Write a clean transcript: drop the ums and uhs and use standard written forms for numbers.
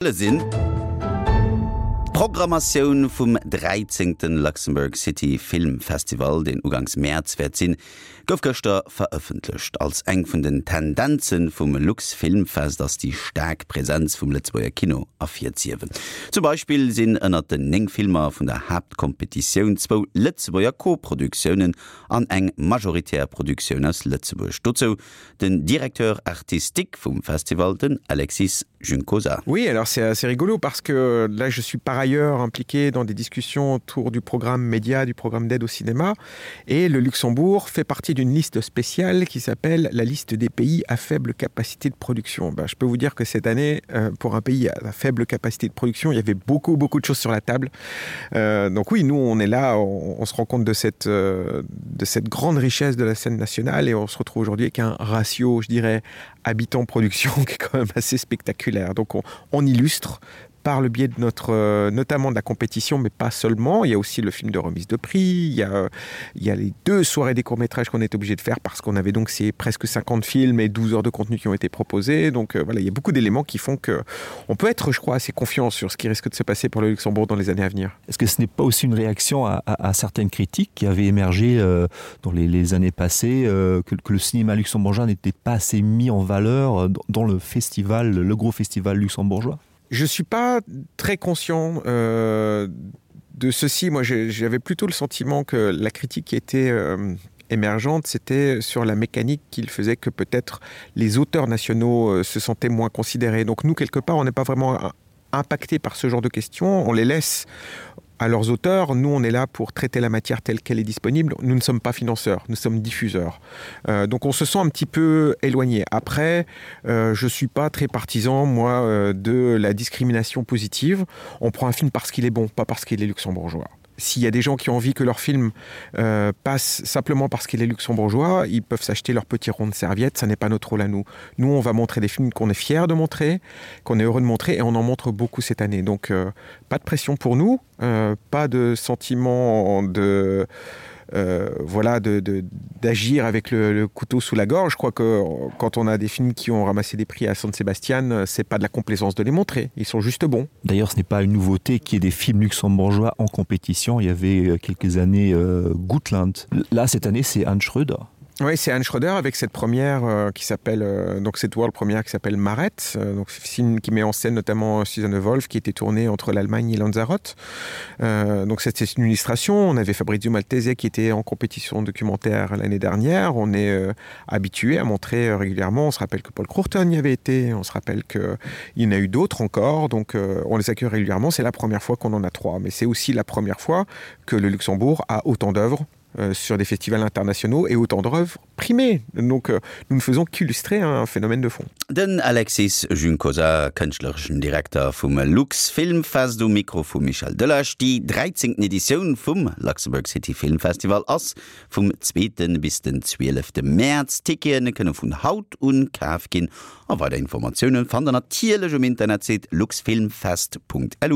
Sinn. D'Programmatioun vum dräizéngte Luxembourg City Film Festival, deen uganks Mäerz wäert sinn, gouf gëschter verëffentlecht. Als eng vun den Tendenze vum LuxFilmFest ass déi staark Presenz vum Lëtzebuerger Kino ervirzehiewen. Zum Beispill sinn ënnert den 9 Filmer vun der Haaptkompetitioun zwou Lëtzebuerger Koproduktiounen an eng majoritär Produktioun aus Lëtzebuerg. Dozou Den Directeur artistique vum Festival, den Alexis Juncosa. Oui, alors c'est assez rigolo parce que là je suis par ailleurs impliqué dans des discussions autour du programme média, du programme d'aide au cinéma et le Luxembourg fait partie d'une liste spéciale qui s'appelle la liste des pays à faible capacité de production. Ben, je peux vous dire que cette année euh, pour un pays à faible capacité de production, il y avait beaucoup beaucoup de choses sur la table. Euh, donc oui, nous on est là, on, on se rend compte de cette, euh, de cette grande richesse de la scène nationale et on se retrouve aujourd'hui avec un ratio, je dirais, habitant production qui est quand même assez spectaculaire. Donc on, on illustre par le biais de notre euh, notamment de la compétition mais pas seulement il y a aussi le film de remise de prix il y a, il y a les deux soirées des courts métrages qu'on est obligé de faire parce qu'on avait donc ces presque 50 films et 12 heures de contenu qui ont été proposés donc euh, voilà il y a beaucoup d'éléments qui font que on peut être je crois assez confiant sur ce qui risque de se passer pour le Luxembourg dans les années à venir est-ce que ce n'est pas aussi une réaction à, à, à certaines critiques qui avaient émergé euh, dans les, les années passées euh, que, que le cinéma luxembourgeois n'était pas assez mis en valeur euh, dans, dans le festival le gros festival luxembourgeois Je suis pas très conscient euh, de ceci. Moi, j'avais plutôt le sentiment que la critique qui était euh, émergente, c'était sur la mécanique qu'il faisait que peut-être les auteurs nationaux euh, se sentaient moins considérés. Donc nous, quelque part, on n'est pas vraiment impacté par ce genre de questions. On les laisse à leurs auteurs. Nous, on est là pour traiter la matière telle qu'elle est disponible. Nous ne sommes pas financeurs, nous sommes diffuseurs. Euh, donc on se sent un petit peu éloigné. Après, euh, je ne suis pas très partisan, moi, euh, de la discrimination positive. On prend un film parce qu'il est bon, pas parce qu'il est luxembourgeois. S'il y a des gens qui ont envie que leur film euh, passe simplement parce qu'il est luxembourgeois, ils peuvent s'acheter leur petit rond de serviette, ça n'est pas notre rôle à nous. Nous, on va montrer des films qu'on est fiers de montrer, qu'on est heureux de montrer et on en montre beaucoup cette année. Donc euh, pas de pression pour nous, euh, pas de sentiment de euh, voilà d'agir avec le, le couteau sous la gorge. Je crois que quand on a des films qui ont ramassé des prix à San Sebastian, c'est pas de la complaisance de les montrer. Ils sont juste bons. D'ailleurs, ce n'est pas une nouveauté qu'il y ait des films luxembourgeois en compétition. Il y avait euh, quelques années euh, Gutland. Là, cette année, c'est Anne Schröder. Oui, c'est Anne Schröder avec cette première euh, qui s'appelle euh, donc cette world première qui s'appelle Maret, euh, donc film qui met en scène notamment Susanne Wolf qui était tournée entre l'Allemagne et Lanzarote. Euh, donc c'était une illustration. On avait Fabrizio Maltese qui était en compétition documentaire l'année dernière. On est euh, habitué à montrer euh, régulièrement. On se rappelle que Paul Crourton y avait été, on se rappelle qu'il y en a eu d'autres encore. Donc euh, on les accueille régulièrement. C'est la première fois qu'on en a trois, mais c'est aussi la première fois que le Luxembourg a autant d'œuvres euh, sur des festivals internationaux et autant d'œuvres primées. Donc euh, nous ne faisons qu'illustrer un phénomène de fond. Den Alexis Juncosa, kënschtlereschen Direkter vum LuxFilmFest um Mikro vum Michel Delage. Déi dräizéngten Editioun vum Luxembourg City Film Festival ass vum zweete bis den zwielefte Mäerz. Tickete kënne vun haut un kaf ginn a weider Informatioune fannt der natierlech um Internetsite luxfilmfest.lu.